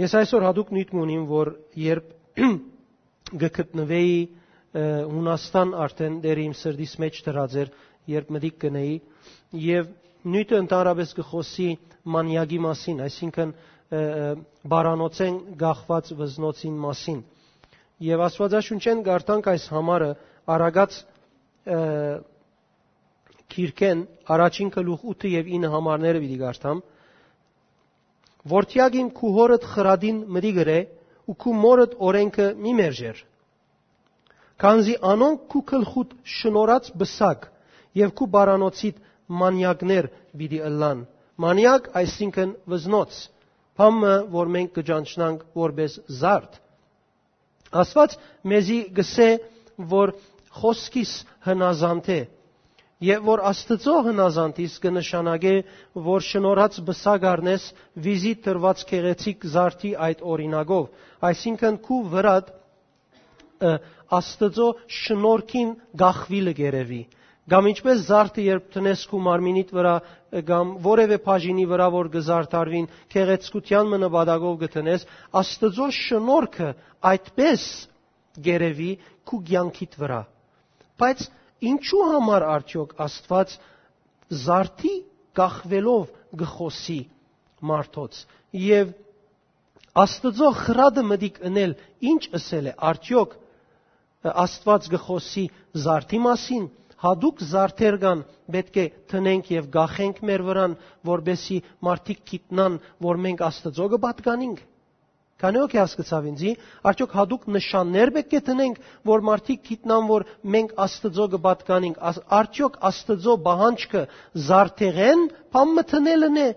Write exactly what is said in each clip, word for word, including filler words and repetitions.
Ես այսօր հատուկ նիւթ մը ունիմ, որ երբ կը գտնուէի, ը, Հունաստան, արդէն դեռ իմ սրտիս մէջ դրած էր, երբ մտիկ կ'ընէի, եւ նիւթը ընդհանրապէս կը խօսի մանիակի մասին, այսինքն, ը, ը, պարանոցէն կախուած վզնոցին մասին։ Եւ Աստուածաշունչէն կարդանք այս համարը, Արագած, ը, գիրքէն առաջին գլուխ ութը եւ ինը համարները պիտի կարդամ։ «Որդեակ իմ, քու հօրդ խրատին մտիկ ըրէ ու քու մօրդ օրէնքը մի մերժեր, քանզի անոնք քու գլխուդ շնորհած պսակ եւ քու պարանոցիդ մանիակներ պիտի ըլլան»։ Մանիակ, այսինքն վզնոց, բան մը, որ մենք կը ճանչնանք որպէս զարդ։ Աստուած մեզի կ'ըսէ, որ խօսքիս հնազանդ է, եւ որ Աստուծոյ հնազանդիս կը նշանակէ, որ շնորհած պսակ առնես վիզի տրուած գեղեցիկ զարդի այդ օրինակով, այսինքն քու վրադ, ը, Աստուծոյ շնորհքին կախուիլը կ'երեւի։ Կամ ինչպէս զարդը, երբ դնես քու մարմինիդ վրայ, ը, կամ որեւէ բաժինի վրայ, որ կը զարդարուին, գեղեցկութեան մը նպատակով կը դնես, Աստուծոյ շնորհքը այդպէս կ'երեւի քու կեանքիդ վրայ։ Բայց ինչու համար արդեօք Աստուած զարդի կախուելով կը խօսի մարդոց, եւ Աստուծոյ խրատը մտիկ ընել ինչ ըսել է, արդեօք Աստուած կը խօսի զարդի մասին, հատուկ զարդեր կան, պէտք է դնենք եւ կախենք մեր վրան, որպէսզի մարդիկ գիտնան, որ մենք Աստուծոյ կը պատկանինք։ Քանի՞ հոգի հասկցաւ ինձի, արդեօք հատուկ նշաններ պէտք է դնենք, որ մարդիկ գիտնան, որ մենք Աստուծոյ կը պատկանինք, աս-, արդեօք Աստուծոյ պահանջքը զարդեղէն բան մը դնելն է,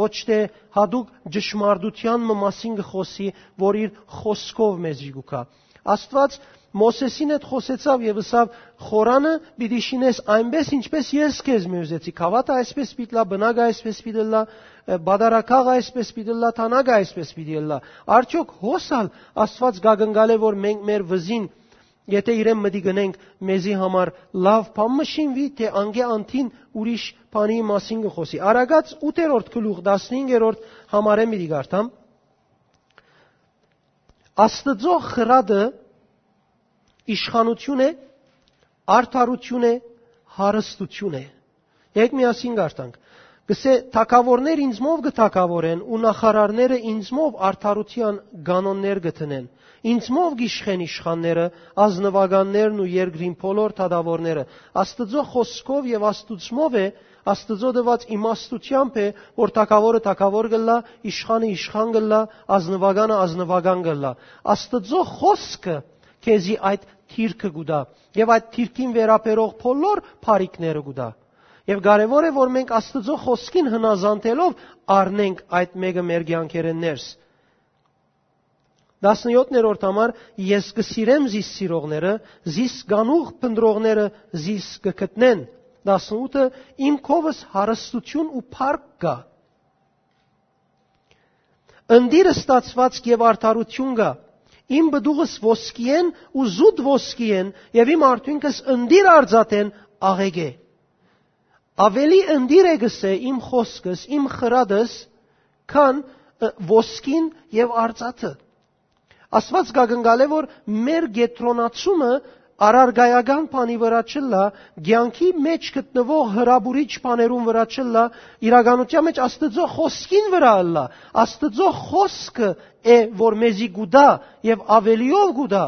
ոչ թէ հատուկ ճշմարտութեան մը մասին կը խօսի, որ իր խօսքով մեզի կու գայ։ Աստուած Մովսէսին հետ խօսեցաւ եւ ըսաւ. «Խորանը պիտի շինես այնպէս, ինչպէս ես քեզմէ ուզեցի»։ Գաւաթը այսպէս պիտի ըլլայ, բնակը այսպէս պիտի ըլլայ, ը, պատարագաղը այսպէս պիտի ըլլայ, թանագը այսպէս պիտի ըլլայ։ Արդեօք հոս ալ Աստուած կ'ակնկալէ, որ մենք մեր վզին, եթէ իրեն մտիկ ընենք, մեզի համար լաւ բան մը շինուի, թէ անկէ անդին ուրիշ բանի մասին կը խօսի։ Արագած ութերորդ գլուխ, տասնհինգերորդ համարէն պիտի կարդամ։ Աստուծոյ խրատը իշխանութիւն է, արդարութիւն է, հարստութիւն է։ Եկեք միասին կարդանք։ Կ'ըսէ. «Թագաւորներ ինծմով կը թագաւորեն ու նախարարները ինծմով արդարութեան կանոններ կը դնեն։ Ինծմով կ'իշխեն իշխանները, ազնուականներն ու երկրին բոլոր թագաւորները»։ Աստուծոյ խօսքով եւ Աստուծմով է, Աստուծոյ տուած իմաստութեամբ է, որ թագաւորը թագաւոր կ'ըլլայ, իշխանը իշխան կ'ըլլայ, ազնուականը ազնուական կ'ըլլայ։ Աստուծոյ խօսքը քեզի այդ դիրքը կու տայ եւ այդ դիրքին վերաբերող բոլոր բարիքները կու տայ։ Եւ կարեւոր է, որ մենք Աստուծոյ խօսքին հնազանդելով առնենք այդ մէկը մեր կեանքերէն ներս։ Տասնյոթերորդ համար. «Ես կը սիրեմ զիս սիրողները, զիս կանուխ փնտռողները զիս կը գտնեն»։ Տասնութը. «Իմ քովս հարստութիւն ու փառք կայ։ Ընտիր ստացուածք եւ արդարութիւն կայ։ Իմ պտուղս ոսկիէն ու զուտ ոսկիէն եւ իմ արդիւնքս ընտիր արծաթէն աղէկ է»։ Աւելի ընտիր է, կ'ըսէ, իմ խօսքս, իմ խրատս, քան, ը, ոսկին եւ արծաթը։ Աստուած կ'ակնկալէ, որ մեր կեդրոնացումը առարկայական բանի վրայ չըլլայ, կեանքի մէջ գտնուող հրապուրիչ բաներուն վրայ չըլլայ, իրականութեան մէջ Աստուծոյ խօսքին վրայ ըլլայ։ Աստուծոյ խօսքը է, որ մեզի կու տայ եւ աւելիով կու տայ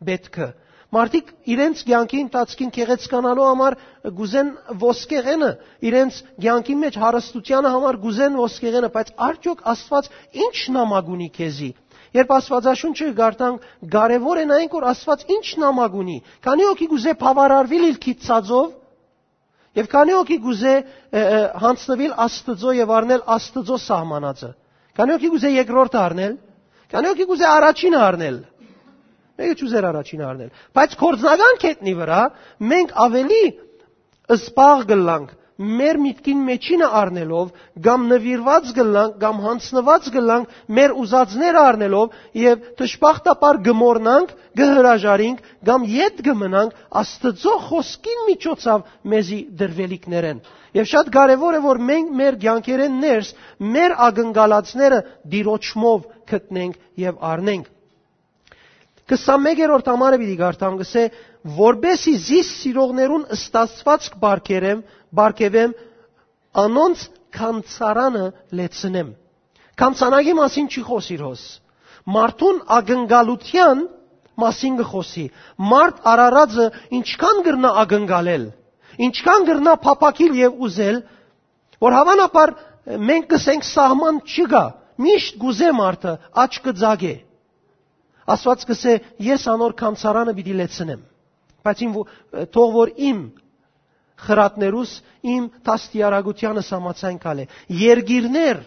պէտքը։ Մարդիկ իրենց կեանքի ընթացքին գեղեցկանալու համար կ'ուզեն ոսկեղենը, իրենց կեանքի մէջ հարստութեանը համար կ'ուզեն ոսկեղենը, բայց արդեօք Աստուած ի՞նչ նամակ ունի քեզի։ Երբ Աստուածաշունչը կարդանք, կարեւոր է նայենք, որ Աստուած ի՞նչ նամակ ունի։ Քանի՞ հոգի կ'ուզէ բաւարարուիլ իր գիտցածով, եւ քանի՞ հոգի կ'ուզէ, ը, ը, յանձնուիլ Աստուծոյ եւ առնել Աստուծոյ սահմանածը։ Քանի՞ հոգի կ'ուզէ երկրորդը առնել։ Քանի՞ հոգի կ'ուզէ առաջինը առնել։ Մէկը չ'ուզեր առաջինը առնել։ Բայց գործնական կետնի վրայ մենք աւելի զբաղ կ'ըլլանք մեր միտքին մեջինը առնելով, կամ նուիրուած կ'ըլլանք, կամ յանձնուած կ'ըլլանք մեր ուզածները առնելով, եւ դժբախտաբար կը մոռնանք, կը հրաժարինք, կամ ետ կը մնանք Աստուծոյ խօսքին միջոցաւ մեզի տրուելիքներէն։ Եւ շատ կարեւոր է, որ մենք մեր կեանքերէն ներս մեր ակնկալածները Տիրոջմով գտնենք եւ առնենք։ Քսանմեկերորդ համարը պիտի կարդամ, կ'ըսէ. «Որպէսզի զիս սիրողներուն ստացուածք պարգերեմ, պարգեւեմ, անոնց գանձարանը լեցնեմ»։ Գանձանակի մասին չի խօսիր հոս։ Մարդուն ակնկալութեան մասին կը խօսի։ Մարդ արարածը ինչքան կրնայ ակնկալել, ինչքան կրնայ փափաքիլ եւ ուզել, որ հաւանաբար մենք կ'ըսենք սահման չկայ, միշտ կ'ուզէ մարդը, աչքը ծակ է։ Աստուած կ'ըսէ. «Ես անոր գանձարանը պիտի լեցնեմ, բայց իմ, թող որ իմ խրատներուս, իմ դաստիարակութեանս համաձայն գալէ»։ Երկիրներ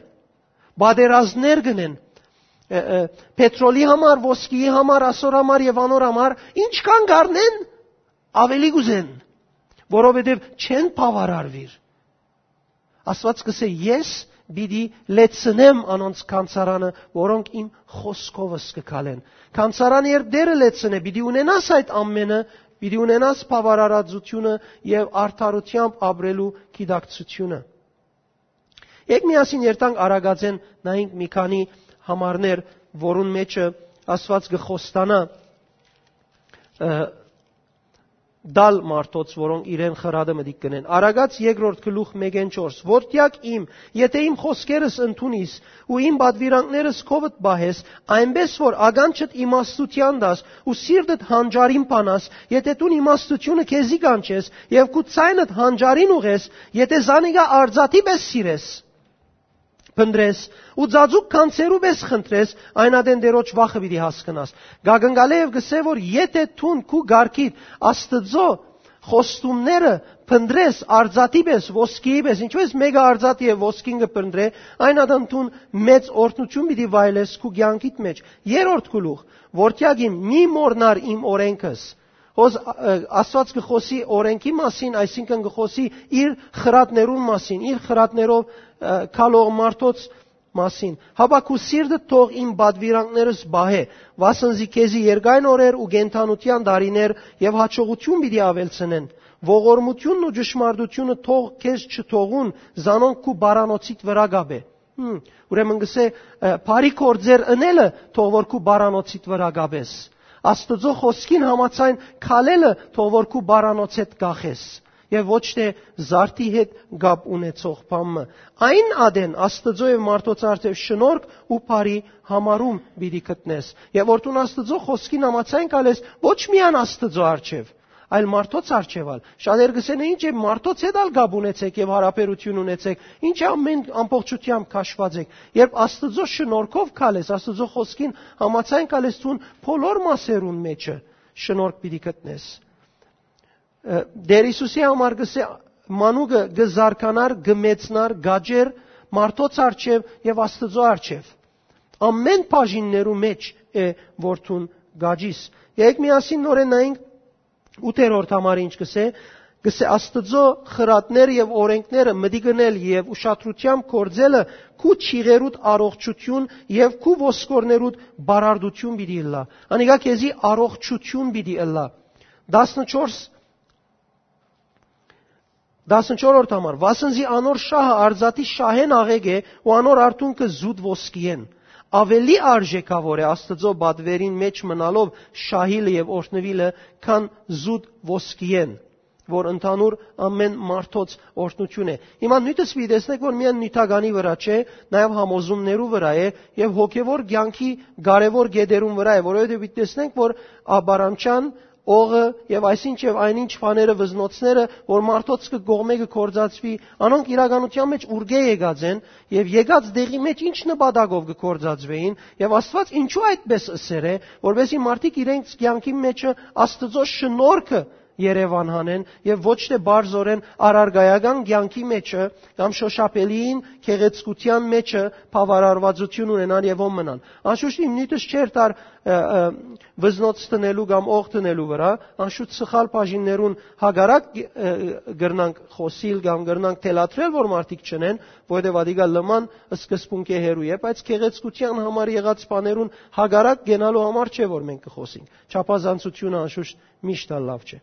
պատերազմներ կ'ընեն, ը, ը, պետրոլի համար, ոսկիի համար, ասոր համար եւ անոր համար, ինչքան կ'առնեն, աւելի կ'ուզեն, որովհետեւ չեն բաւարարուիր։ Աստուած կ'ըսէ. «Ես պիտի լեցնեմ անոնց գանձարանը, որոնք իմ խօսքովս կը քալեն»։ Գանձարանը երբ Տէրը լեցնէ, պիտի ունենաս այդ ամէնը, պիտի ունենաս բաւարարածութիւնը եւ արդարութեամբ ապրելու գիտակցութիւնը։ Եկեք միասին երթանք Արագածէն, նայենք մի քանի համարներ, որուն մէջը Աստուած կը խոստանայ, ը, տալ մարդոց, որոնք իրեն խրատը մտիկ կ'ընեն։ Արագած երկրորդ գլուխ մէկէն չորս. «Որդեակ իմ, եթէ իմ խօսքերս ընդունիս ու իմ պատուիրանքներս քովդ պահես, այնպէս որ ականջդ իմաստութեան տաս ու սիրտդ հանճարին բանաս, եթէ դուն իմաստութիւնը քեզի կանչես եւ քու ձայնդ հանճարին ուղես, եթէ զանիկա արծաթի պէս սիրես, փնտռես ու ծածուկ գանձերու պէս խնդրես, այն ատեն Տէրոջ վախը պիտի հասկնաս»։ Կ'ակնկալէ եւ կ'ըսէ, որ եթէ դուն քու կարգիդ Աստուծոյ խոստումները փնտռես արծաթի պէս, ոսկիի պէս, ինչպես մէկը արծաթ եւ ոսկին կը փնտռէ, այն ատեն դուն մեծ օրհնութիւն պիտի վայելես քու կեանքիդ մէջ։ Երրորդ գլուխ. «Որդեակ իմ, մի մոռնար իմ օրէնքս»։ Հոս, ը, Աստուած կը խօսի օրէնքի մասին, այսինքն կը խօսի իր խրատներուն մասին, իր խրատներով, ը, քալող մարդոց մասին։ «Հապա քու սիրտդ թող իմ պատուիրանքներս պահէ, վասն զի քեզի երկայն օրեր ու կենդանութեան տարիներ եւ յաջողութիւն պիտի աւելցնեն։ Ողորմութիւնն ու ճշմարտութիւնը թող քեզ չթողուն, զանոնք քու պարանոցիդ վրայ կ'ապէ»։ Հմ, ուրեմն կ'ըսէ, ը, բարի գործեր ընելը թող որ քու պարանոցիդ վրայ կ'ապես։ Աստուծոյ խօսքին համաձայն քալելը թող որ քու պարանոցէդ կախես, եւ ոչ թէ զարդի հետ կապ ունեցող բան մը։ Այն ատեն Աստուծոյ եւ մարդոց առջեւ շնորհք ու բարի համարում պիտի գտնես, եւ որ դուն Աստուծոյ խօսքին համաձայն քալես, ոչ միայն Աստուծոյ առջեւ, այլ մարդոց առջեւ ալ։ Շատեր կ'ըսեն. «Ինչ է, մարդոց հետ ալ կապ ունեցեք եւ յարաբերութիւն ունեցեք, ինչ է, ամեն, ամբողջութեամբ քաշուած եք»։ Երբ Աստուծոյ շնորհքով քալես, Աստուծոյ խօսքին համաձայն քալես, դուն բոլոր մասերուն մէջը շնորհք պիտի գտնես։ Ը, Տէր Յիսուսի համար կ'ըսէ. «Մանուկը կը զարգանար, կը մեծնար, կ'աճէր մարդոց առջեւ եւ Աստուծոյ առջեւ»։ Ամեն բաժիններու մէջ է որ դուն կ'աճիս։ Եկեք միասին նորեն նայենք ութերորդ համարը ինչ կ'ըսէ, կ'ըսէ. «Աստուծոյ խրատները եւ օրէնքները մտիկ ընել եւ ուշադրութեամբ գործելը քու ջիղերուդ առողջութիւն եւ քու ոսկորներուդ բարարդութիւն պիտի ըլլայ»։ Անիկա քեզի առողջութիւն պիտի ըլլայ։ Տասնչորս, տասնչորսերորդ համար. «Վասն զի անոր շահը արծաթի շահէն աղէկ է ու անոր արթունքը զուտ ոսկիէն։ Աւելի արժէքաւոր է Աստուծոյ պատուերին մէջ մնալով շահիլը եւ օրհնուիլը, քան զուտ ոսկիէն, որ ընդհանուր ամեն մարդոց օրհնութիւն է»։ Հիմա նիւթս պիտի տեսնենք, որ միայն նիւթականի վրայ չէ, նաեւ համոզումներու վրայ է, եւ հոգեւոր կեանքի կարեւոր կետերուն վրայ է, որովհետեւ պիտի տեսնենք, որ ապարանչան, օղը եւ այսինչ եւ այնինչ բաները, վզնոցները, որ մարդոց կը կողմէ կը գործածուի, անոնք իրականության մէջ ուրկէ եկած են, եւ եկած տեղի մէջ ինչ նպատակով կը գործածուէին, եւ Աստուած ինչու այդպես ըսեր է, որպեսզի մարդիկ իրենց կեանքի մեջը Աստուծոյ շնորհքը Երեւան հանեն եւ ոչ թէ պարզօրէն առարկայական կեանքի մէջը կամ շոշափելիին գեղեցկութեան մէջը բաւարարուածութիւն ունենան եւ ո մնան։ Անշուշտ իմ նիւթս չէր տար, ը, ը, վզնոց տնելու կամ օղ տնելու վրայ, անշուշտ սխալ բաժիններուն հակառակ, ը, կրնանք խօսիլ կամ կրնանք թելադրել, որ մարդիկ չնեն, որովհետեւ ադիկա լման սկզբունքէ հեռու է, բայց գեղեցկութեան համար եղած բաներուն հակառակ կենալու համար չէ, որ մենք կը խօսենք։ Չափազանցությունը անշուշտ միշտ ալ լավ չէ։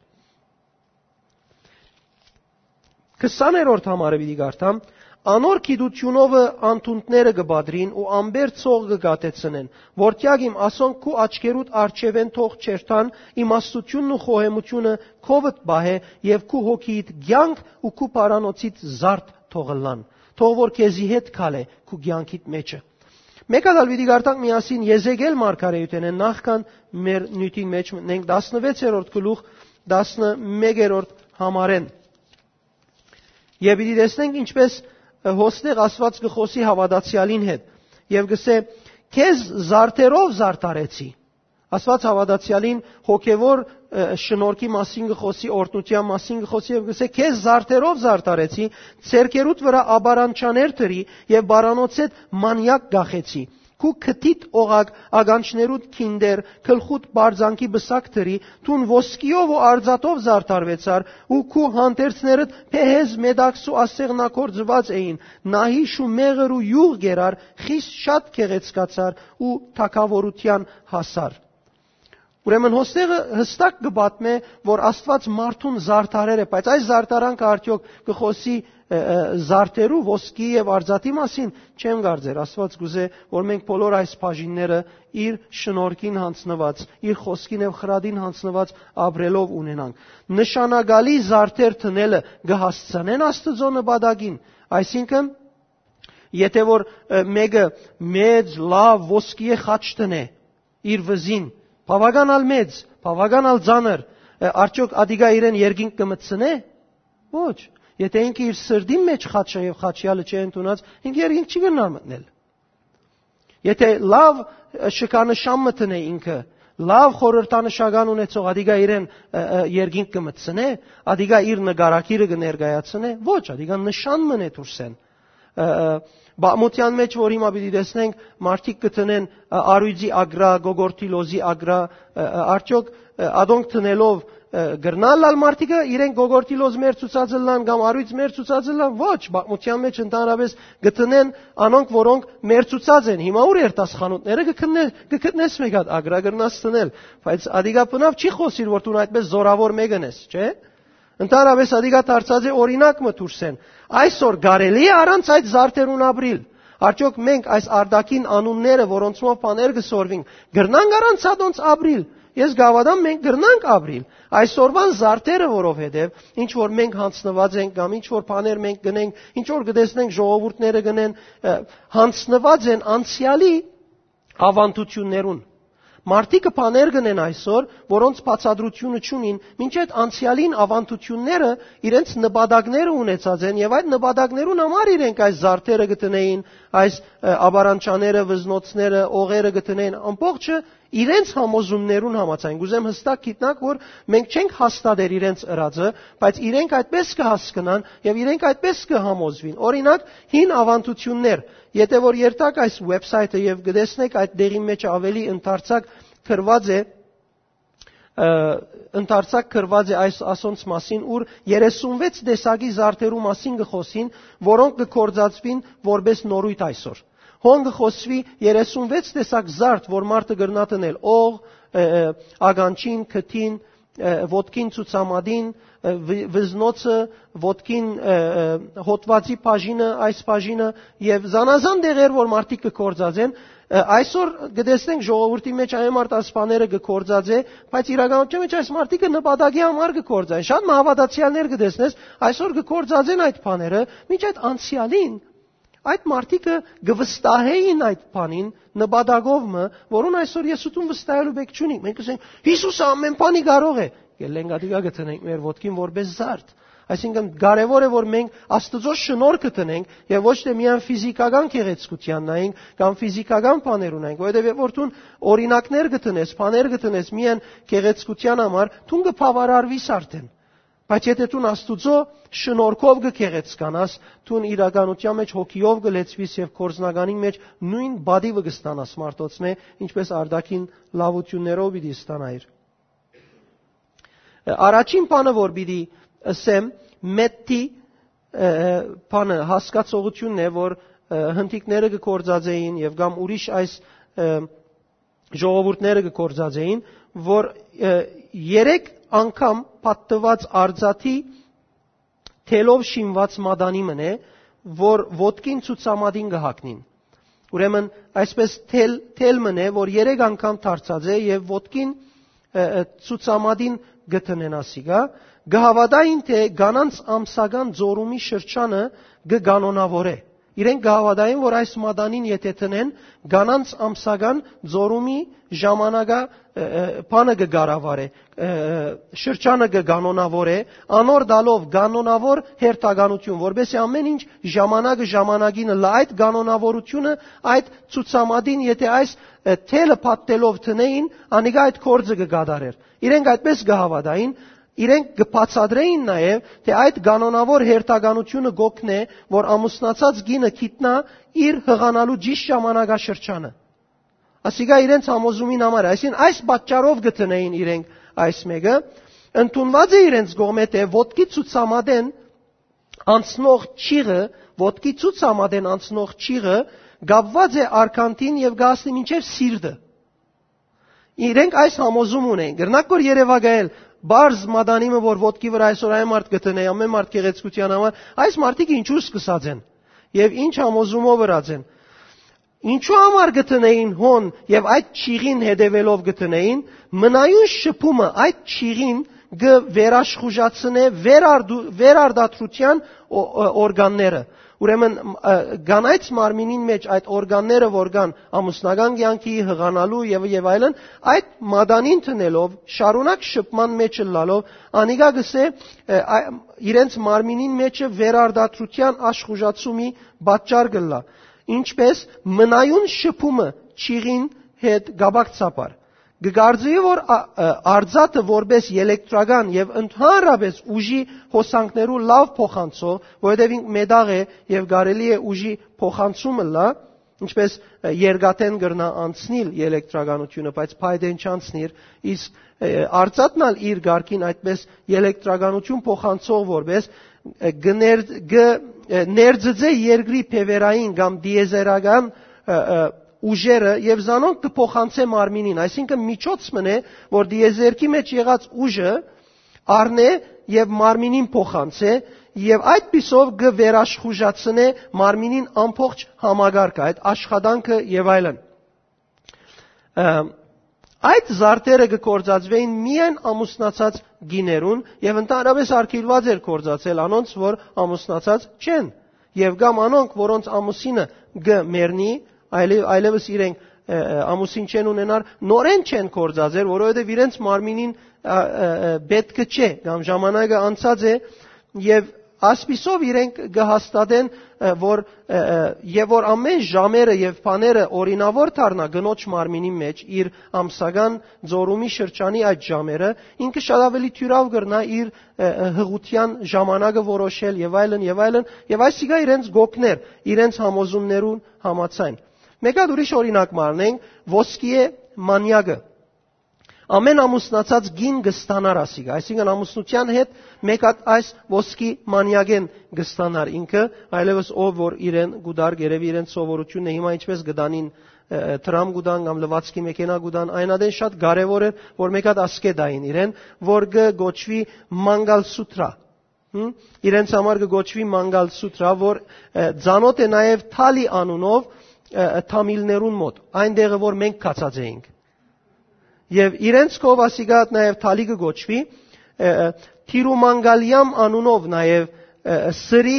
Քսաներորդ համարը պիտի կարդամ։ «Անոր գիտութիւնովը անդունդները կը պատրին ու ամպեր ցող կը կաթեցնեն, որտեակ իմ ասոնք քու աչքերուդ առջեւէն թող չերթան, իմաստութիւնն ու խոհեմութիւնը քովդ պահէ եւ քու հոգիիդ կեանք ու քու պարանոցիդ զարդ թող ըլլան, թող որ քեզի հետ քալէ քու կեանքիդ մէջը»։ Մէկ ալ պիտի կարդանք միասին Եզեկիել մարգարեութենէն նախքան մեր նիւթին մէջ մտնենք, տասնվեցերորդ գլուխ, տասնմեկերորդ համարէն։ Եւ պիտի տեսնենք ինչպես, ը, հոստեղ Աստուած կը խօսի հաւատացեալին հետ եւ կսէ. «Քեզ զարդերով զարդարեցի»։ Աստուած հաւատացեալին հոգեվոր, ը, շնորհքի մասին կը խօսի, օրհնութեան մասին կը խօսի եւ կսէ. «Քեզ զարդերով զարդարեցի, ձեռքերուդ վրայ ապարանչաներ դրի եւ պարանոցէդ մանեակ կախեցի։ Քու քթիդ օղակ, ականջներուդ քինդեր, գլխուդ պարծանքի պսակ դրի, դուն ոսկիով ու արծաթով զարդարուեցար ու քու հանդերձներդ փեհեզ մետաքսու ասեղնագործուած էին, նահիշ ու մեղր ու իւղ կերար, խիստ շատ գեղեցկացար ու թագաւորութեան հասար»։ Ուրեմն հոստեղը յստակ կը պատմէ, որ Աստուած մարդուն զարդարեր է, բայց այս զարդարանքը արդեօք կը խօսի, ը, ը, զարդերու, ոսկի եւ արծաթի մասին, չեմ կարծեր։ Աստուած կուզէ, որ մենք բոլոր այս բաժինները իր շնորհքին յանձնուած, իր խօսքին եւ խրատին յանձնուած ապրելով ունենանք։ Նշանակալի զարդեր դնելը կը հասցնեն Աստուծոյ նպատակին, այսինքն, եթե որ, ը, մէկը մեծ, լաւ, ոսկիէ խաչ դնէ իր վզին, բաւական ալ մեծ, բաւական ալ ծանր, ը, արդեօք ադիկա իրեն երկինք կը մտցնէ՞։ Ոչ։ Եթե ինքը իր սրտին մէջ խաչը եւ խաչեալը չի ընդունած, ինքը երկինք չի կրնար մտնել։ Եթե լաւ, ը, շքանշան մը դնէ ինքը, լաւ խորհրդանշական ունեցող, ադիկա իրեն, ը, ը, երկինք կը մտցնէ, ադիկա իր նկարագիրը կը ներկայացնէ, ոչ, ադիկա նշան մըն է դուրսէն։ Ը, ը, բաղմութեան մէջ, որ հիմա պիտի տեսնենք, մարդիկ կը դնեն, ը, արոյցի ագրա, գոգորթի լոզի ագրա, ը, ը, արդյոք, ը, ադոնք դնելով, ը, կրնան ալ մարդիկը իրենք գոգորթի լոզ մեր ցուցած ըլլան կամ արոյց մեր ցուցած ըլլան։ Ոչ, բաղմութեան մէջ ընդհանրապես կը դնեն անոնք, որոնք մեր ցուցած են։ Հիմա ուր երթաս խանութները կը գտնե-, կը գտնես մէկ հատ ագրա կրնաս դնել, բայց ադիկա բնաւ չի խօսիր, որ դուն այդպես զորավոր մեկն ես, չէ՞։ Ընդհանրապես ադիկա դարձած է օրինակ մը դուրսէն։ Այսօր կարելի՞ է առանց այդ զարդերուն ապրիլ։ Արդյոք մենք այս արտաքին անունները, որոնցմով բաներ կը սորվին, կրնանք առանց ադոնց ապրիլ։ Ես կհաւատամ, մենք կրնանք ապրիլ այսօրվան զարդերը, որովհետեւ ինչ որ մենք յանձնուած ենք կամ ինչ որ բաներ մենք գնենք, ինչ որ կը տեսնենք ժողովուրդները գնեն, ը, յանձնուած են անցեալի ավանդութիւններուն։ Մարդիկը բաներ կ'ընեն այսօր, որոնց բացատրութիւնը չունին, մինչեւ անցեալին ավանդութիւնները իրենց նպատակները ունեցած են, եւ այդ նպատակներուն համար իրենք այս զարդերը կ'ընեին, այս, ը, ապարանչաները, վզնոցները, օղերը կ'ընեին, ամբողջը իրենց համոզումներուն համաձայն։ Կ'ուզեմ յստակ գիտնաք, որ մենք չենք հաստատեր իրենց ըրածը, բայց իրենք այդպես կը հասկնան եւ իրենք այդպես կը համոզուին։ Օրինակ, հին ավանդութիւններ, եթե որ երթաք այս website-ը եւ կտեսնեք, այդ դեղին մեջ ավելի ընդարձակ գրված է, ը, ընդարձակ գրված է այս, ասոնց մասին, ուր երեսունվեց տեսակի զարդերու մասին կը խօսին, որոնք կը գործածուին որպես նորույթ այսօր։ Հոն կը խօսուի երեսունվեց տեսակ զարդ, որ մարդը կրնայ դնել օղ, ը, ը, ականջին, քթին, ը, ոտքին, ցուցամատին, ը, վի-, վզնոցը, ոտքին, ը, ը, հոտուածի բաժինը, այս բաժինը եւ զանազան դեղեր, որ մարդիկ կը գործածեն։ Ը, այսօր կտեսնենք ժողովուրդի մեջ այն մարդ այս բաները կը գործածէ, բայց իրականության մեջ այս մարդիկը նպատակի համար կը գործեն։ Շատ մը հաւատացեալներ կտեսնես, այսօր կը գործածեն այդ բաները, մինչ այդ անցեալին այդ մարդիկը կը վստահեին այդ բանին նպատակով մը, որուն այսօր ես ու դուն վստահելու պէք չունի։ Մենք կ'ըսենք, «Յիսուսը ամեն բանի կարող է»։ Գելլենք ատիկա կը դնենք մեր ոտքին որպես զարդ։ Այսինքն կարեւոր է, որ մենք Աստուծոյ շնորհքը տնենք եւ ոչ թե միայն ֆիզիքական գեղեցկութեան նայենք կամ ֆիզիքական բաներ ունենք, որովհետեւ երբ որ դուն օրինակներ կը տնես, բաներ կը տնես միայն գեղեցկութեան համար, դուն կը բաւարարվիս արդեն։ Բայց եթե դուն Աստուծոյ շնորհքով կը գեղեցկանաս, դուն իրականութեան մեջ հոգիով կը լեցուիս եւ կորզնականին մեջ նոյն պատիվը կը ստանաս մարդոցմէ, ինչպէս արտաքին լաւութիւններով պիտի ստանայիր։ Առաջին բանը, որ պիտի ըսեմ, մէթի, ը, բանը, հասկացողութիւնն է, որ, ը, հնդիկները կը գործածէին եւ կամ ուրիշ այս, ը, ժողովուրդները կը գործածէին, որ, ը, երեք անգամ պատտուած արծաթի թելով շինուած մատանի մըն է, որ ոտքին ցուցամատին կը հագնին։ Ուրեմն, այսպէս թել, թել մըն է, որ երեք անգամ դարձած է եւ ոտքին, ը, ը, ցուցամատին կը տնեն ասիկա, կը հաւատային, թե կանանց ամսական ձորումի շրջանը կը կանոնաւորէ։ Իրենք կը հաւատային, որ այս մատանին եթե տնեն, կանանց ամսական ձորումի ժամանակը, ը, ը, բանը կը կառավարէ, ը, ը, շրջանը կը կանոնաւորէ, անոր տալով կանոնաւոր հերթականութիւն, որպեսզի ամեն ինչ ժամանակը ժամանակին ըլլայ, այդ կանոնաւորութիւնը, այդ ցուցամատին, եթե այս, ը, թելը պատտելով տնէին, անիկա այդ գործը կը կատարէր։ Իրենք այդպէս կը հաւատային, իրենք կը բացատրէին նաեւ, թե այդ կանոնաւոր հերթականութիւնը կ'օգնէ, որ ամուսնացած կինը գիտնայ իր յղանալու ճիշդ ժամանակաշրջանը։ Ասիկա իրենց համոզումին համար է, այսինքն այս պատճառով կը տնէին իրենք այս մէկը, ընդունուած է իրենց կողմէ, թե ոտքի ցուցամատեն անցնող ճիղը, ոտքի ցուցամատեն անցնող ճիղը կապուած է արգանդին եւ կը հասնի մինչեւ սիրտը։ Իրենք այս համոզում ունեն։ Կրնակ որ երեւակայել, բարձ մատանիմը, որ ոտքի վրայ այսօր այն մարդ կը տնէ, ամեն մարդ գեղեցկութեան համար, այս մարդիկ ինչու սկսած են եւ ինչ համոզումով ըրած են։ Ինչու համար կը տնէին հոն եւ այդ ճիղին հետեւելով կը տնէին, մնայուն շփումը այդ ճիղին կը վերաշխուժացնէ վերարդու-, վերարտադրութեան օ-, օ-, օրգանները։ Ուրեմն, ը, կանայց մարմինին մեջ այդ օրգանները, որ կան ամուսնական կյանքի, յղանալու եւ, եւ այլն, այդ մատանին տնելով, շարունակ շփման մեջ ըլլալով, անիկա կսէ, ը, ա-, իրենց մարմինին մեջը վերարտադրութեան աշխուժացումի պատճառ կ'ըլլայ, ինչպէս մնայուն շփումը ճիղին հետ կապակցաբար։ Կը կարծուի, որ ա-, ը, արծաթը որպէս ելեկտրական եւ ընդհանրապէս ուժի հոսանքներու լաւ փոխանցող, որովհետեւ ինք մետաղ է եւ կարելի է ուժի փոխանցում ըլլայ, ինչպէս, ը, երկաթէն կրնայ անցնիլ ելեկտրականութիւնը, բայց փայտէն չանցնիր, իսկ, ը, արծաթն ալ իր կարգին այդպէս ելեկտրականութիւն փոխանցող որպէս, ը, կը ներ-, կը, ը, ներծծէ երկրի բեւեռային կամ տիեզերական, ը, ը, ուժերը եւ զանոնք կը փոխանցէ մարմինին, այսինքն միջոց մըն է, որ տիեզերքի մեջ եղած ուժը առնէ եւ մարմինին փոխանցէ եւ այդպիսով կը վերաշխուժացնէ մարմինին ամբողջ համակարգը, այդ աշխատանքը եւ այլն։ Ը, այդ զարդերը կը գործածուէին միայն ամուսնացած կիներուն եւ ընդհանրապէս արգիլուած էր գործածել անոնց, որ ամուսնացած չեն, եւ կամ անոնք, որոնց ամուսինը կը մեռնի, այլեւ-, այլեւս իրենք, ը, ը, ամուսին չեն ունենար, նորէն չեն գործածեր, որովհետեւ իրենց մարմինին, ա, ը, ը, պէտքը չէ, կամ ժամանակը անցած է, եւ ասպիսով իրենք կը հաստատեն, ը, որ, ը, ը, եւ որ ամեն ժամերը եւ բաները օրինաւոր դառնայ կնոջ մարմինի մեջ, իր ամսական ձորումի շրջանի այդ ժամերը, ինքը շատ ավելի թիւրաւ կրնայ իր, ը, ը, հղութեան ժամանակը որոշել եւ այլն, եւ այլն, եւ այսիկա իրենց կ'օգնէր, իրենց համոզումներուն համաձայն։ Մէկ հատ ուրիշ օրինակ մը առնենք, ոսկիե մանեակը։ Ամեն ամուսնացած կին կը ստանար ասիկա, այսինքն ամուսնութեան հետ մէկ հատ այս ոսկի մանեակէն կը ստանար ինքը, այլեւս ով որ իրեն կու դար, երեւի իրեն սովորութիւնն է, հիմա ինչպէս կը տանին, ը, ը, դրամ կու տան կամ լուացքի մեքենա կու տան, այն ատեն շատ կարեւոր էր, որ մէկ հատ ասկէ տային իրեն, որ կը կոչուի Մանգալ Սութրա։ Հմ? Իրենց համար կը կոչուի Մանգալ Սութրա, որ, ը, ծանոթ է նաեւ Թալի անունով, ը, ը, թամիլներուն մոտ, այն տեղը, որ մենք գացած էինք։ Եւ իրենց քով ասիկա նաև թալի կը կոչուի, ը, ը, Թիրումանգալիամ անունով նաև, ը, ը, Սրի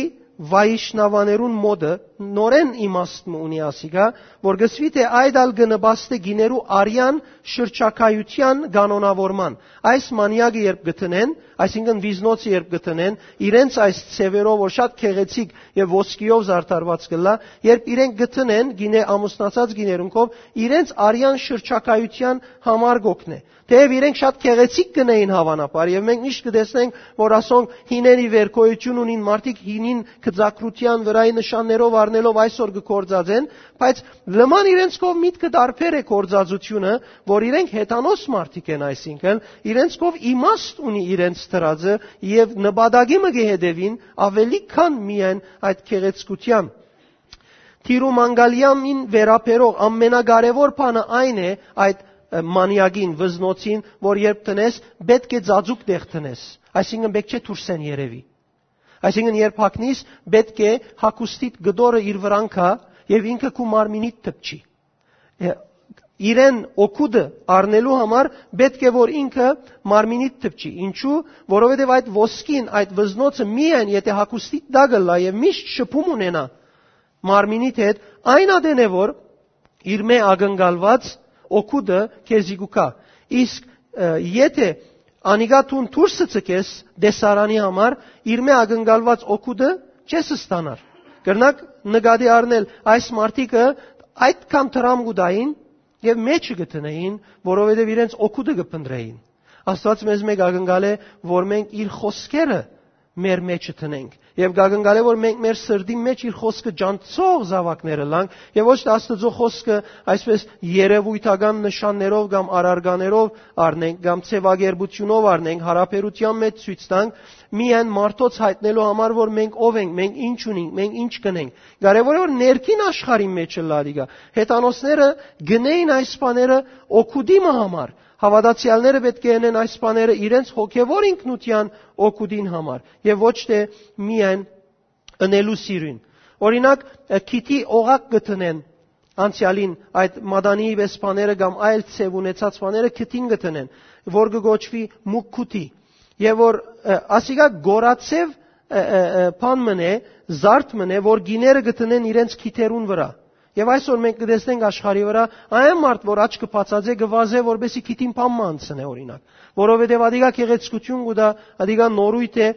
Վայիշնավաներուն մոդը, նորեն իմաստ մը ունի ասիկա, որ կսուի թէ այդ ալ կը նպաստէ գիներու արեան շրջագայութեան կանոնաւորման։ Այս մանեակը երբ կը դնեն, այսինքն վիզնոցը երբ կը դնեն, իրենց այս ձևերով, որ շատ գեղեցիկ եւ ոսկիով զարդարված կ'ըլլայ, երբ իրենք կը դնեն գինե, ամուսնացած գիներունքով, իրենց արեան շրջագայութեան համար կ'օգնէ։ Թէեւ իրենք շատ գեղեցիկ կ'ընէին, հաւանաբար, եւ մենք միշտ կը տեսնենք, որ ասոնք հինէն ի վեր գոյութիւն ունին, մարդիկ հինին գծագրութեան վրայի նշաններով առնելով այսօր կը գործածեն, բայց լման իրենց կողմ միտքը տարբեր է գործածութիւնը, որ իրենք հեթանոս մարդիկ են, այսինքն իրենց կողմ իմաստ ունի իրենց դրածը եւ նպատակի մը կը հետեւին ավելի քան միայն այդ գեղեցկութեան։ Թիրու մանգալիամին վերաբերող ամենակարևոր բանը այն է այդ, ը, մանեակին, վզնոցին, որ երբ տնես, պէտք է ծածուկ տեղ տնես, այսինքն պէտք չէ դուրսէն երևի։ Այսինքն երբ հագնիս, պէտք է հագուստիդ կտորը իր վրան գայ եւ ինքը քու մարմինիդ դպչի։ Ը, իրեն օգուտը առնելու համար պէտք է որ ինքը մարմինիդ դպչի։ Ինչու՞, որովհետեւ այդ ոսկին, այդ վզնոցը միայն եթե հագուստիդ տակ ըլլայ եւ միշտ շփում ունենայ մարմինիդ հետ, այն ատեն է որ իր մէ ակնկալուած օգուտը քեզի կու գայ։ Իսկ, ը, եթե անիկա դուն դուրսը ցկես տեսարանի համար, իր մէ ակնկալուած օգուտը չես ստանար։ Կրնաք նկատի առնել, այս մարդիկը այդքան դրամ կու տային եւ մեջը կը դնէին, որովհետեւ իրենց օգուտը կը փնտրէին։ Աստուած մեզ մէկ ակնկալ է, որ մենք իր խօսքերը մեր մեջը դնենք։ Եւ կակնկալէ, որ մենք մեր սրտին մէջ իր խօսքը ջանցող զաւակներ ըլլանք, եւ ոչ թէ Աստուծոյ խօսքը այսպես երեւոյթական նշաններով կամ առարկաներով առնենք, կամ ձեւակերպութիւնով առնենք, յարաբերութեան մէջ ցոյց տանք, միայն մարդոց յայտնելու համար, որ մենք ով ենք, մենք ինչ ունենք, մենք ինչ կ'ընենք։ Կարեւոր է, որ ներքին աշխարհին մէջ ըլլայ ատիկա։ Հեթանոսները կ'ընէին այս բաները օգուտի մը համար։ Հաւատացեալները պէտք է ընեն այս բաները իրենց հոգեւոր ինքնութեան օգուտին համար եւ ոչ թէ միայն ընելու սիրուն։ Օրինակ, ը, քիթի օղակ կը դնեն անցեալին այդ մատանիի պէս բաները կամ այլ ձեւ ունեցած բաները քիթին կը դնեն, որ կը կոչուի մուկքութի, եւ որ, ը, ասիկա գորացեւ, ը, ը, ը, բան մըն է, զարդ մըն է, որ գիները կը դնեն իրենց քիթերուն վրայ։ Եւ այսօր մենք կը տեսնենք աշխարհի վրայ այն մարդ, որ աչքը բացած է, կը վազէ, որպեսզի քիթին բան մը անցնէ, օրինակ, որովհետեւ ադիկա գեղեցկութիւն կու տայ, ադիկա նորույթ է,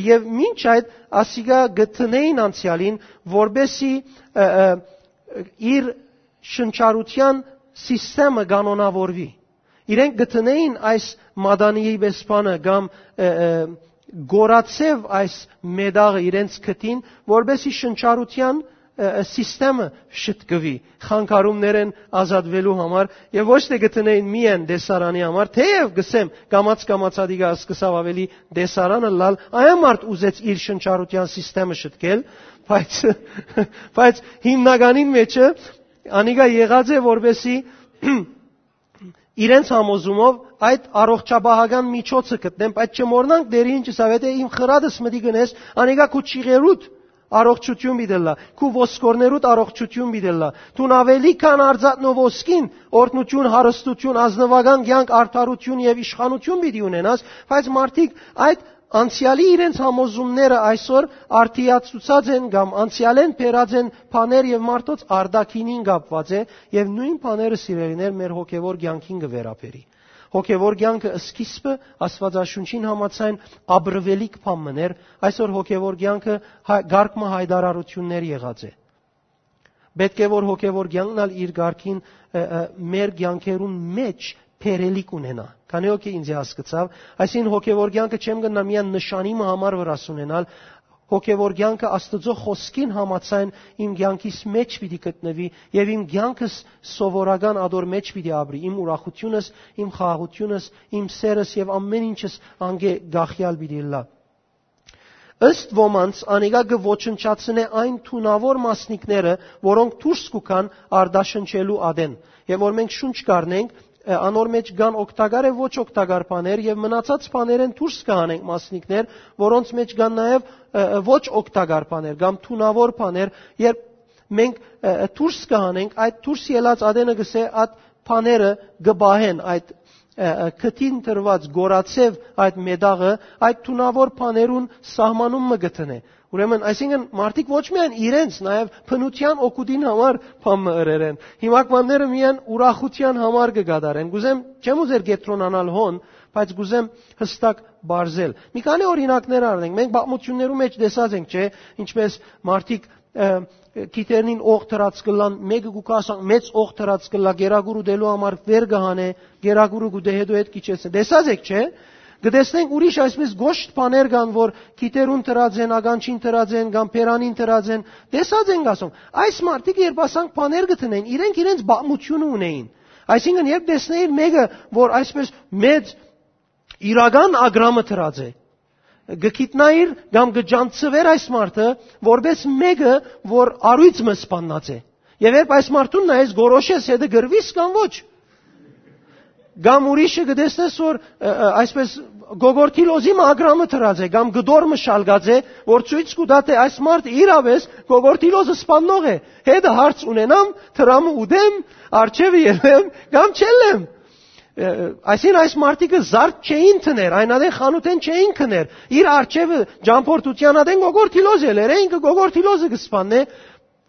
եւ մինչ այդ ասիկա կը դնէին անցեալին, որպեսզի, ը, ը, իր շնչառութեան սիստեմը կանոնաւորուի։ Իրենք կը դնէին այս մատանիի պէս բանը կամ, ը, ը, գորացեւ այս մետաղը իրենց քթին, որպեսզի շնչառութեան, ը, ը, սիստեմը շտկուի խանգարումներէն ազատուելու համար, եւ ոչ թէ կը դնէին միայն տեսարանի համար, թէեւ կ'ըսեմ, կամաց-կամաց ադիկա սկսաւ ավելի տեսարան ըլլալ, այն մարդ ուզեց իր շնչառութեան սիստեմը շտկել, բայց, բայց հիմնականին մէջը անիկա եղած է, որպեսզի իրենց համոզումով այդ առողջապահական միջոցը գտնեն, բայց չմոռնանք Տէրը ինչ ըսաւ, «Եթե իմ խրատս մտի գնես, անիկա քու ճիղերուդ առողջութիւն պիտի ըլլայ, քու ոսկորներուդ առողջութիւն պիտի ըլլայ։ Դուն աւելի քան արծաթն ու ոսկին օրհնութիւն, հարստութիւն, ազնուական կեանք, արդարութիւն եւ իշխանութիւն պիտի ունենաս», բայց մարդիկ այդ անցեալի իրենց համոզումները այսօր արդիացուցած են կամ անցեալէն բերած են բաներ եւ մարդոց արտաքինին կապուած է, եւ նոյն բաները, սիրելիներ, մեր հոգեւոր կեանքին կը վերաբերի։ Հոգեւոր կեանքը սկիզբը Աստուածաշունչին համաձայն ապրուելիք բան մըն էր, այսօր հոգեւոր կեանքը հայ-, կարգ մը յայտարարութիւններ եղած է։ Պէտք է որ հոգեւոր կեանքն ալ իր կարգին, ը, ը, մեր կեանքերուն մէջ բերելիք ունենայ։ Քանի՞ հոգի ինձ հասկցաւ, այսինքն հոգեւոր կեանքը չեմ կրնայ միայն նշանի մը համար վրաս ունենալ, հոգեւոր կեանքը Աստուծոյ խօսքին համաձայն իմ կեանքիս մէջ պիտի գտնուի եւ իմ կեանքս սովորական ատոր մէջ պիտի ապրի, իմ ուրախութիւնս, իմ խաղաղութիւնս, իմ սերս եւ ամէն ինչս անկէ կախեալ պիտի ըլլայ։ Ըստ ոմանց, անիկա կը ոչնչացնէ այն թունաւոր մասնիկները, որոնք դուրս կու գան արտաշնչելու ատեն։ Եւ որ մենք շունչ կ'առնենք, ը, անոր մէջ կան օգտակար եւ ոչ օգտակար բաներ, եւ մնացած բաներէն դուրս կը հանենք մասնիկներ, որոնց մէջ կան նաեւ, ը, ը, ոչ օգտակար բաներ կամ թունաւոր բաներ, երբ մենք, ը, ը, դուրս կը հանենք, այդ դուրս ելած ատենը կ'ըսէ, այդ բաները կը պահեն, այդ, ը, ը, քթին տրուած գորացեւ այդ մետաղը, այդ թունաւոր բաներուն սահմանում մը կը դնէ, Ուրեմն, այսինքն, մարդիկ ոչ միայն իրենց, նաեւ բնութեան օգուտին համար բան մը ըրեր են։ Հիմակվանները միայն ուրախութեան համար կը կատարեն։ Կ'ուզեմ, չեմ ուզեր կեդրոնանալ հոն, բայց կ'ուզեմ յստակ բարձել։ Մի քանի օրինակներ առնենք։ Մենք պատմություններու մէջ տեսած ենք, չէ՞, ինչպես մարդիկ, ը, գիթերնին օղ դրած կ'ըլլան, մէկը կու կասա, մեծ օղ դրած կ'ըլլայ, կերակուր ուտելու համար վեր կը հանէ, կերակուրը կու դե, հետո հետ կ'իջեցնէ։ Տեսած եք, չէ՞։ Կը տեսնենք ուրիշ այսպես գոշտ բաներ կան, որ գիթերուն դրած են, ականջին դրած են, կամ բերանին դրած են։ Տեսած ենք, ասում։ Այս մարդիկ, երբ ասանք բաներ կը դնեն, իրենք իրենց պատմությունը ունեին։ Այսինքն, երբ տեսնեիր մէկը, որ այսպես մեծ իրական ագրամը դրած է, կը գիտնայիր կամ կը ճանչցուէր այս մարդը, որպես մէկը, որ առոյծ մը սպաննած է։ Եւ երբ այս մարդուն նայես, գորոշես, հետը կ'ըրուի՞ս կամ ոչ։ Կամ ուրիշը կը տեսնես, որ, ը, ը, այսպես, գոգորթի լոզի մը ագրամը դրած է, կամ կտոր մը շալկած է, որ ցոյց կու տայ, թէ այս մարդը իրապէս գոգորթի լոզը սպաննող է։ Հետը հարց ունենամ, դրամը ուտեմ, արջեւը ելեմ, կամ չելեմ։ Ը, ը, այսինքն, այս մարդիկը զարդ չէին դներ, այն ատեն խանութէն չէին գներ։ Իր արջեւը ճամբորդութեան ատեն գոգորթի լոզ ելեր, է, ինքը գոգորթի լոզը կը սպաննէ,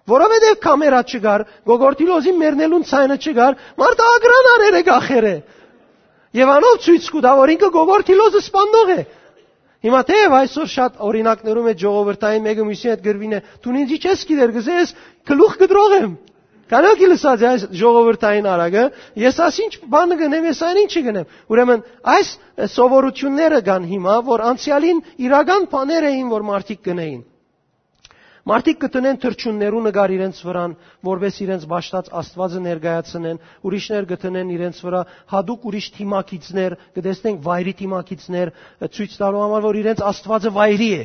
որովհետեւ կամերա չկար, գոգորթի լոզին մեռնելուն ցայնը չկար, մարդը ագրան արեր է, կախեր է։ Եւ անով ցոյց կու տայ, որ ինքը գոգորթի լոզը սպաննող է։ Հիմա թէեւ այսօր շատ օրինակներու մէջ ժողովրդային մէկը մյուսին հետ կ'ըրուի, դուն ինձի չես գիտեր, կ'ըսես, գլուխ կտրող եմ։ Քանի՞ հոգի լսած է այս ժողովրդային արագը, ես աս ինչ բանը կ'ընեմ, ես այն ինչը կ'ընեմ։ Ուրեմն, այս, ը, սովորութիւնները կան հիմա, որ անցեալին իրական բաներ էին, որ մարդիկ կ'ընէին։ Մարդիկ կը դնեն թռչուններու նկար իրենց վրան, որպէս իրենց պաշտած Աստուածը ներկայացնեն, ուրիշներ կը դնեն իրենց վրայ հատուկ ուրիշ դիմագիծներ, կը տեսնենք վայրի դիմագիծներ, ը, ցոյց տալու համար, որ իրենց Աստուածը վայրի է,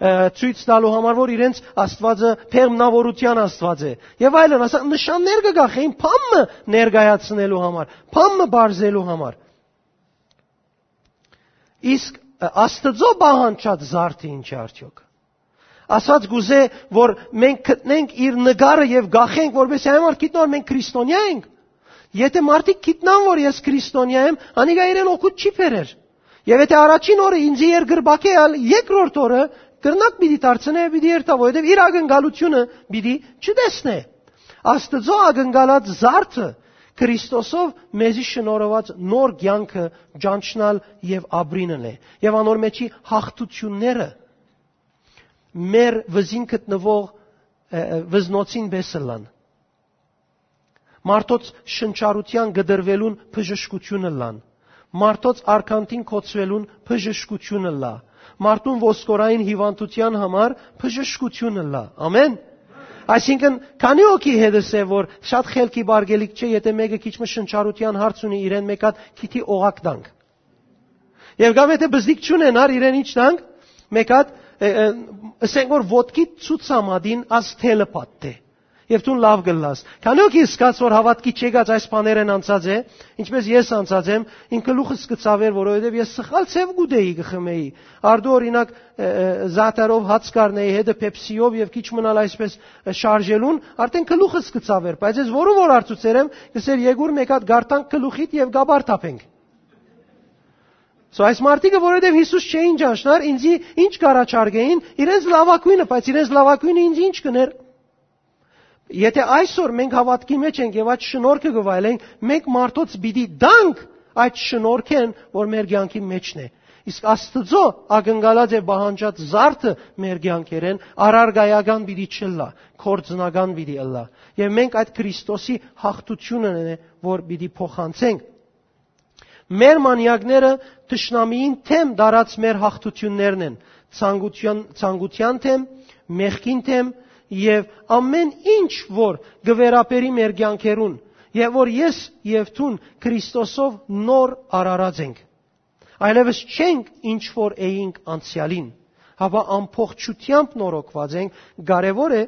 ը, ցոյց տալու համար, որ իրենց Աստուածը բեղմնաւորութեան Աստուած է, եւ այլն, ասա, նշաններ կը կախէին բան մը ներկայացնելու համար, բան մը պարզելու համար։ Իսկ, ը, Աստուծոյ պահանջած զարդը ի՞նչ է արդեօք։ Ասած կ'ուզէ, որ մենք գտնենք իր նկարը եւ կախենք, որպեսզի այն մարդ գիտնայ, որ մենք քրիստոնեա ենք։ Եթե մարդիկ գիտնան, որ ես քրիստոնեա եմ, անիկա իրեն օգուտ չի բերեր։ Եւ եթե առաջին օրը ինձի երկրպագէ ալ, երկրորդ օրը կրնակ պիտի դարձնէ, պիտի երթայ, որովհետեւ իր ակնկալությունը պիտի չտեսնէ։ Աստուծոյ ակնկալած զարդը Քրիստոսով մեզի շնորհուած նոր կեանքը ճանչնալ եւ ապրինն է։ Եւ անոր մէջի յաղթութիւնները մեր վզին գտնուող, ը, ը, վզնոցին պէս ըլլան։ Մարդոց շնչառութեան կտրուելուն բժշկութիւն ըլլան։ Մարդոց արկանդին կոչուելուն բժշկութիւն ըլլայ։ Մարդուն ոսկորային հիւանդութեան համար բժշկութիւն ըլլայ։ Ամեն։ Այսինքն, քանի՞ հոգի հետս է, որ շատ խելքի պարգելիք չէ, եթե մէկը քիչ մը շնչառութեան հարց ունի, իրեն մէկ հատ քիթի օղակ տանք։ Եւ կամ եթե բզդիկ չունենար, իրեն ինչ տանք, մէկ հատ, ը, ը, ըսենք որ ոտքի ցուցամատին աս թելը պատտէ։ Եւ դուն լաւ կ'ըլլաս։ Քանի՞ հոգի ըսկաց, որ հաւատքի չեկած այս բաներէն անցած է, ինչպես ես անցած եմ, իմ գլուխս կը ցաւէր, որովհետեւ ես սխալ ձեւ կ'ուտէի, կը խմէի։ Արդու, օրինակ, ը, ը, զաթարով հաց կ'առնէի, հետը Pepsi-ով եւ քիչ մնալ այսպես, ը, շարժելուն, արդեն գլուխս կը ցաւէր, բայց ես որուն որ հարցուցեր եմ, կ'ըսէր, «Եկուր մէկ հատ գարթանք գլուխիդ եւ կապար թափենք»։ So, այս մարդիկը, որովհետեւ Յիսուս չէին ճանչնար, ինձի ինչ կ'առաջարկէին, իրենց լաւագոյնը, բայց իրենց լաւագոյնը ինձ ինչ կ'ընէր։ Եթե այսօր մենք հաւատքի մէջ ենք եւ այդ շնորհքը կը վայելենք, մենք մարդոց պիտի տանք այդ շնորհքէն, որ մեր կեանքի մէջն է։ Իսկ Աստուծոյ ակնկալած է պահանջած զարդը մեր կեանքերէն առարկայական պիտի չըլլայ, գործնական պիտի ըլլայ։ Եւ մենք այդ Քրիստոսի յաղթութիւնն է, որ պիտի փոխանցենք։ Մեր մանեակները թշնամիին դէմ տարած մեր յաղթութիւններն են, ցանկութեան, ցանկութեան դէմ, մեղքին դէմ եւ ամէն ինչ, որ կը վերաբերի մեր կեանքերուն, եւ որ ես եւ դուն Քրիստոսով նոր արարած ենք։ Այլեւս չենք ինչ որ էինք անցեալին, հապա ամբողջութեամբ նորոգուած ենք, կարեւոր է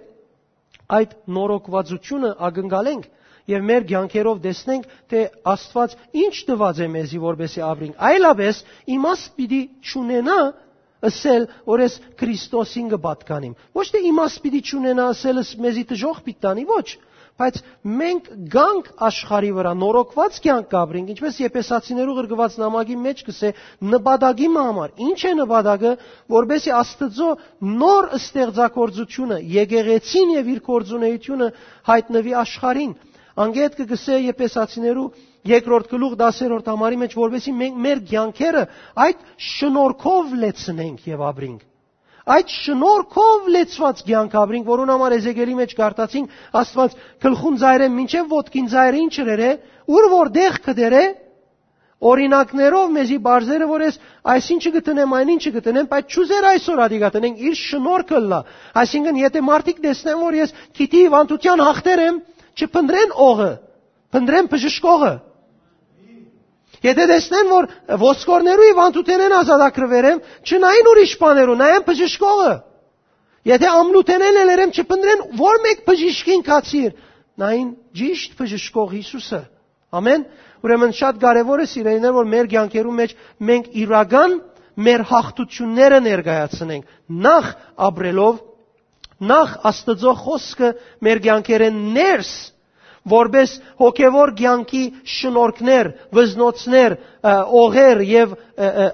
այդ նորոգուածությունը ակնկալենք եւ մեր կեանքերով տեսնենք, թէ Աստուած ինչ տուած է մեզի, որպեսզի ապրենք։ Այլապես իմաստ պիտի չունենայ ըսել, որ ես Քրիստոսին կը պատկանիմ։ Ոչ թէ իմաստ պիտի չունենայ ըսել, ըս-, մեզի դժոխք պիտի տանի, ոչ, Բայց մենք գանք աշխարհի վրայ, նորոգուած կեանք կ'ապրինք, ինչպես Եփեսացիներու ղրկուած նամակի մէջ կ'ըսէ, նպատակի մը համար։ Ի՞նչ է նպատակը, որպեսզի Աստուծոյ նոր ստեղծագործութիւնը, եկեղեցին եւ իր գործունեութիւնը յայտնուի աշխարհին։ Անկէ հետ կը կ'ըսէ Եփեսացիներու երկրորդ գլուխ, տասերորդ համարի մէջ, որպեսզի մենք մեր կեանքերը այդ շնորհքով լեցնենք եւ ապրինք։ Այդ շնորհքով լեցուած կեանք ապրինք, որուն համար Էզեկիելի մէջ կարդացինք, Աստուած գլխուն ծայրէն մինչեւ ոտքին ծայրը ինչ ըրեր է, ուր որ դեղ կը դերէ, օրինակներով մեզի բարձերը, որ ես այսինչը կը տնեմ, այն ինչը կը տնեմ, բայց չուզեր այսօր ադիկա տնենք, իր շնորհքը ըլլայ։ Այսինքն, եթե մարդիկ տեսնեն, որ ես քիթի հիւանդութեան հաղթեր եմ, չփնտռեն օղը, փնտռեն բժշկողը։ Եթե տեսնեն, որ ոսկորներու հիւանդութենէն ազատագրուեր եմ, չնային ուրիշ բաներու, նայեն բժշկողը։ Եթե ամլութենէն ելեր եմ, չփնտռեն որ մէկ բժիշկին կացիր, նային ճիշդ բժշկող Յիսուսը։ Ամեն։ Ուրեմն շատ կարեւոր է, սիրելիներ, որ մեր կեանքերու մէջ մենք իրական մեր հաղթությունները ներկայացնենք, նախ ապրելով, նախ Աստուծոյ խօսքը մեր կեանքերէն ներս, որպէս հոգեվոր կեանքի շնորհքներ, վզնոցներ, ը, օղեր եւ, ը, ը,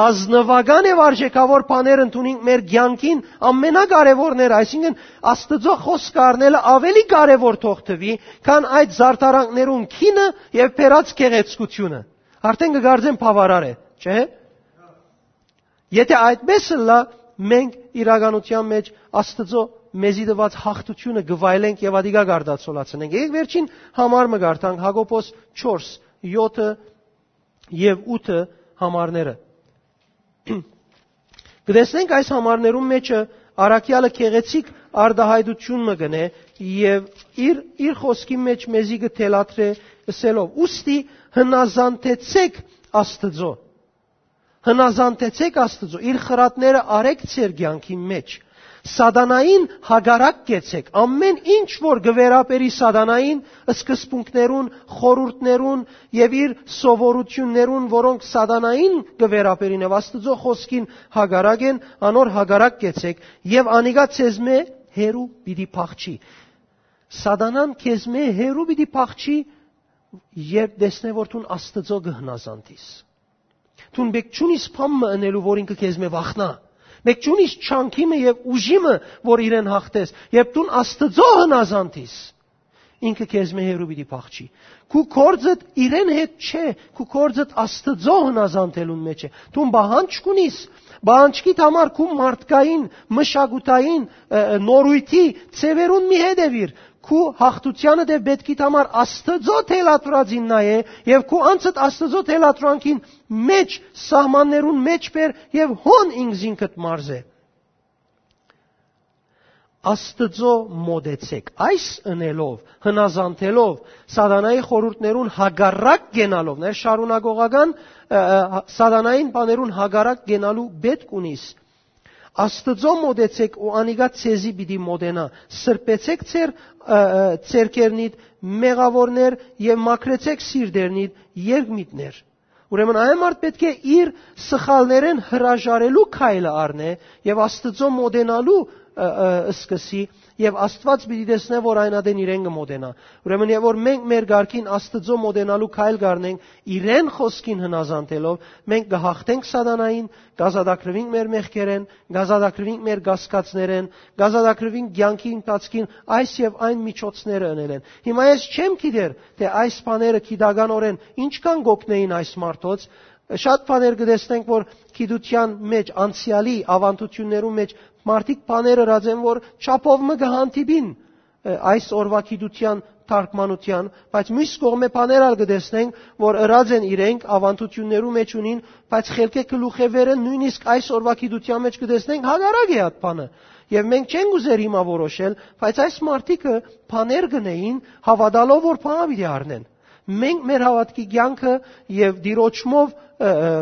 ազնուական եւ արժեքավոր բաներ ընդունենք մեր կեանքին, ամենակարեւորները, այսինքն, Աստուծոյ խօսքը առնելը ավելի կարեւոր թող թուի, քան այդ զարդարանքներուն քինը եւ բերած գեղեցկությունը։ Արդեն կը կարծեմ բաւարար է, չէ՞։ Եթե այդպես ըլլայ, մենք իրականութեան մէջ Աստուծոյ մեզի տուած հաղթութիւնը կը վայելենք եւ ադիկա կարտացոլացնենք։ Եկեք վերջին համար մը կարդանք, Յակոբոս չորս, յոթը եւ ութը համարները։ Կը տեսնենք այս համարներուն մէջը առաքեալը գեղեցիկ արտայայտութիւն մը կ'ընէ եւ իր, իր խօսքի մէջ մեզի կը թելադրէ ըսելով. «Ուստի հնազանդեցէք Աստուծոյ»։ Հնազանդեցէք Աստուծոյ, իր խրատները արեք ձեր կեանքին մէջ։ Սատանային հակառակ կեցեք, ամէն ինչ որ կը վերաբերի սատանային, սկզբունքներուն, խորհուրդներուն եւ իր սովորութիւններուն, որոնք սատանային կը վերաբերին եւ Աստուծոյ խօսքին հակառակ են, անոր հակառակ կեցեք եւ անիկա ձեզմէ հեռու պիտի փախչի։ Սատանան քեզմէ հեռու պիտի փախչի, երբ տեսնէ, որ դուն Աստուծոյ կը հնազանդիս։ Դուն մէկ չունիս բան մը ընելու, որ ինքը քեզմէ վախնայ։ Մէկ չունիս չանքի մը եւ ուժի մը, որ իրեն հաղթես, երբ դուն Աստուծոյ հնազանդիս, ինքը քեզմէ հեռու պիտի փախչի։ Քու գործդ իրեն հետ չէ, քու գործդ Աստուծոյ հնազանդելուն մէջ է։ Դուն պահանջ չունիս, պահանջքիդ համար քու մարդկային, մշակութային, ը, ը, նորույթի ձեւերուն մի հետեւիր։ Քու հաղթութեանը դեռ պէտքիդ համար Աստուծոյ թելադրածին նայէ եւ քու անձդ Աստուծոյ թելադրանքին մէջ, սահմաններուն մէջ բեր եւ հոն ինքզինքդ մարզէ։ Աստուծոյ մոտեցեք։ Այս ընելով, հնազանդելով, սատանայի խորհուրդներուն հակառակ կենալով, ներ շարունակողական, ը, ը, սատանային բաներուն հակառակ կենալու պէտք ունիս։ Աստուծոյ մոտեցեք ու անիկա ձեզի պիտի մոտենայ։ Սրբեցեք ձեր, ը, ը, ձեռքերնիդ մեղաւորներ եւ մաքրեցեք սիրտերնիդ երկմիտներ։ Ուրեմն այն մարդ պէտք է իր սխալներէն հրաժարելու քայլը առնէ եւ Աստուծոյ մոտենալու, ը, ը, սկսի, եւ Աստուած պիտի տեսնէ, որ այն ատեն իրեն կը մոտենայ։ Ուրեմն, եւ որ մենք մեր կարգին Աստուծոյ մոտենալու քայլ կ'առնենք իրեն խօսքին հնազանդելով, մենք կը հաղթենք սատանային, կ'ազատագրուինք մեր մեղքերէն, կ'ազատագրուինք մեր կասկածներէն, կ'ազատագրուինք կեանքի ընթացքին այս եւ այն միջոցները ընելէն։ Հիմա ես չեմ գիտեր, թէ այս բաները գիտականօրէն ինչքան կ'օգնէին այս մարդոց։ Շատ բաներ կը տեսնենք, որ գիտութեան մէջ, անցեալի աւանդութիւններու մէջ մարդիկ բաներ ըրած են, որ չափով մը կը հանդիպին, ը, այս օրուայ գիտութեան թարգմանութեան, բայց միւս կողմէ բաներ ալ կը տեսնենք, որ ըրած են իրենք, աւանդութիւններու մէջ ունին, բայց խելքէ գլուխէ վերը նոյնիսկ այս օրուայ գիտութեան մէջ կը տեսնենք հակառակ է այդ բանը։ Եւ մենք չենք ուզեր հիմա որոշել, բայց այս մարդիկը բաներ կ'ընէին, հաւատալով որ բան պիտի առնեն։ Մենք մեր հաւատքի կեանքը եւ Տիրոջմով, ը, ը,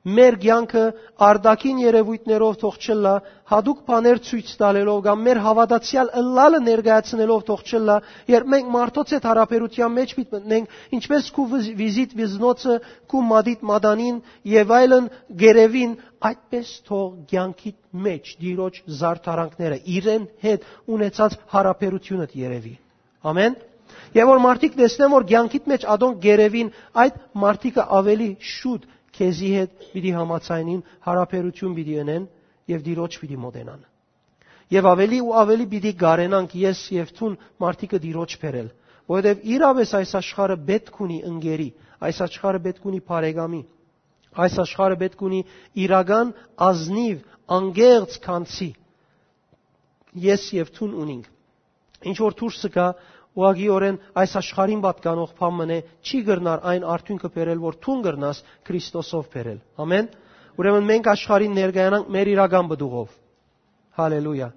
մեր կեանքը արտաքին երևույթներով թող չըլլայ, յատուկ բաներ ցոյց տալելով կամ մեր հաւատացեալ ըլլալը ներկայացնելով թող չըլլայ, երբ մենք մարդոց հետ յարաբերութեան մէջ պիտի մտնենք, ինչպես քու վիզ-, վիզիտ վիզնոցը, քու մատիտ մատանին եւ այլն գերեւին, այդպես թող կեանքիդ մէջ Տիրոջ զարդարանքները, իրեն հետ ունեցած յարաբերութիւնդ երևի։ Ամեն։ Եւ որ մարդիկ տեսնեն, որ կեանքիդ մեջ ատոնք կ'երեւին, այդ մարդիկը աւելի շուտ քեզի հետ պիտի համաձայնին, յարաբերութիւն պիտի ընեն եւ Տիրոջ պիտի մոտենան։ Եւ աւելի ու աւելի պիտի կարենանք ես եւ դուն մարդիկը Տիրոջ բերել, որովհետեւ իրապէս այս աշխարհը պէտք ունի ընկերի, այս աշխարհը պէտք ունի բարեկամի, այս աշխարհը պէտք ունի իրական ազնիվ, անկեղծ քանցի։ Ես եւ դուն ունինք։ Ինչ որ դուրս կայ, ուղղակիօրէն այս աշխարհին պատկանող բան մըն է, չի կրնար այն արդիւնքը բերել, որ դուն կրնաս Քրիստոսով բերել։ Ամեն։ Ուրեմն մենք աշխարհին ներկայանանք մեր իրական պտուղով։ Հալելույա։